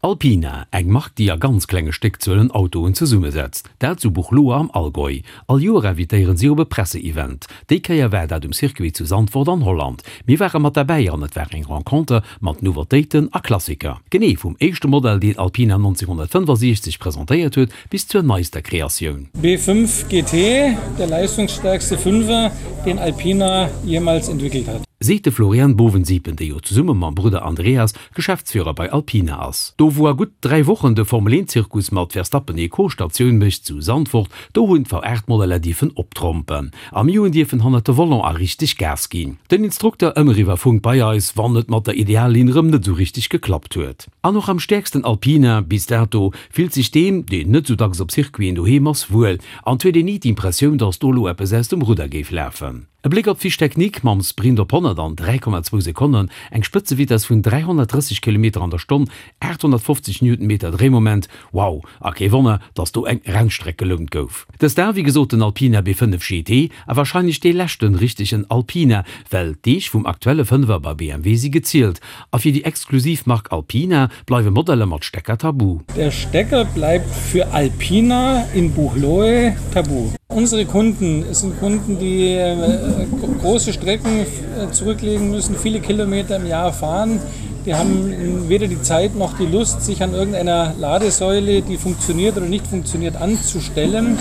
Alpina, eng Mark déi a ganz klenge Stéckzuelen Autoen zesummesetzt, dat zu Buchloe am Allgäu. All Joer invitéieren si op e Presseevent. Déi Kéier war dat um Circuit zu Zandvoort an Holland. Mir ware mat derbäi an et war eng Renconter mat Nouveautéiten a Klassiker. Genee vum éischte Modell deen Alpina 1965 presentéiert huet bis zur neister Kreatioun. B5 GT, der leistungsstärkste Fünfer, den Alpina jemals entwickelt hat. Seet de Florian Bovensiepen, dee jo zesumme mam Brudder Andreas Geschäftsführer bei Alpina ass. Do wou a gutt 3 Wochen de Formel 1 Zirkus mat Verstappen et Co Statioun mécht zu Zandvoort, do hunn d'V8 Modeller dierfen optrompen a mir hunn dierfen hannert de Volant a richteg Gas ginn. Den Instrukter ëmmer iwwer Funk bei eis, wann et mat der Ideallinn rëm net sou richteg geklappt huet. An och am stäerksten Alpina bis dato fillt sech deem, deen net sou dacks op Circuiten doheem ass, wuel an 't huet een ni d'Impressioun, dass do lo eppes aus dem Rudder géif lafen. E Bléck op d'Fiche technique, Mam Sprint op 100 an 3,2 Sekonnen, eng Spëtzevitess vun 330 Kilometer an der Stonn, 850 Newtonmeter Dréimoment, wow! A kee Wonner, dass do eng Rennstreck gelount gouf. Dëst war wéi gesot den Alpina B5 GT a warscheinlech dee leschten richtegen Alpina, well d'Deeg vum aktuelle Fënnwer bei BMW si gezielt a fir déi exklusiv Mark Alpina bleiwe Modeller mat Stecker tabu. Der Stecker bleibt für Alpina in Buchloe tabu. Unsere Kunden sind Kunden, die große Strecken zurücklegen müssen, viele Kilometer im Jahr fahren. Die haben weder die Zeit noch die Lust, sich an irgendeiner Ladesäule, die funktioniert oder nicht funktioniert, anzustellen.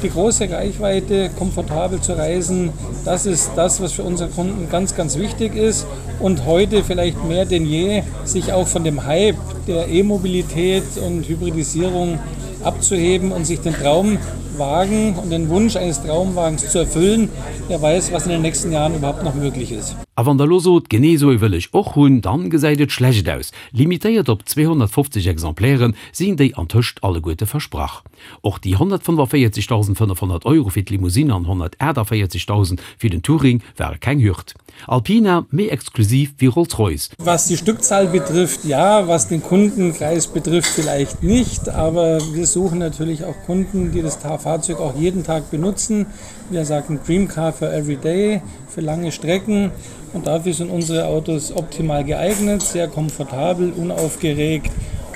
Die große Reichweite, komfortabel zu reisen, das ist das, was für unsere Kunden ganz, ganz wichtig ist. Und heute vielleicht mehr denn je, sich auch von dem Hype der E-Mobilität und Hybridisierung abzuheben und sich den Traumwagen und den Wunsch eines Traumwagens zu erfüllen, wer weiß, was in den nächsten Jahren überhaupt noch möglich ist. A wann der lo sot, genee esou ee wëll ech och hunn, dann gesäit et schlecht aus. Limitéiert op 250 Exemplairen sinn déi antëscht alleguerte versprach. Och déi 145.500 Euro fir d'Limousine an 148.000 fir den Touring ware keng Hürd. Alpina, méi exklusiv wéi Rolls-Royce. Was die Stückzahl betrifft, ja, was den Kundenkreis betrifft, vielleicht nicht, aber wir suchen natürlich auch Kunden, die das Fahrzeug auch jeden Tag benutzen. Wir sagen Dream Car for every day, für lange Strecken und dafür sind unsere Autos optimal geeignet, sehr komfortabel, unaufgeregt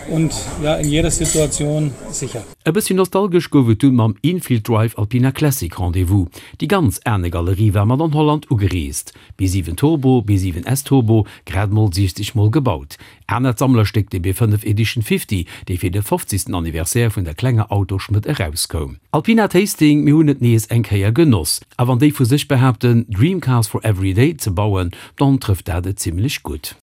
und ja, in jeder Situation sicher. E bëssi nostalgesch gouf et dunn mam Infield Drive Alpina Classic Rendez-vous. Déi ganz Aarnegalerie war mat an Holland ugereest. B7 Turbo, B7 S Turbo, grad mol 60 mol gebaut. Anert Sammlerstéck de B5 Edition 50, dee fir de 50. Anniversaire vun der klenger Autoschmëdd erauskoum. Alpina Tasting, mir hunn et nees eng Kéier genoss. A wann déi vu sech behaapten, Dream Cars for Every Day ze bauen, dann trëfft dat et zimmlech gutt.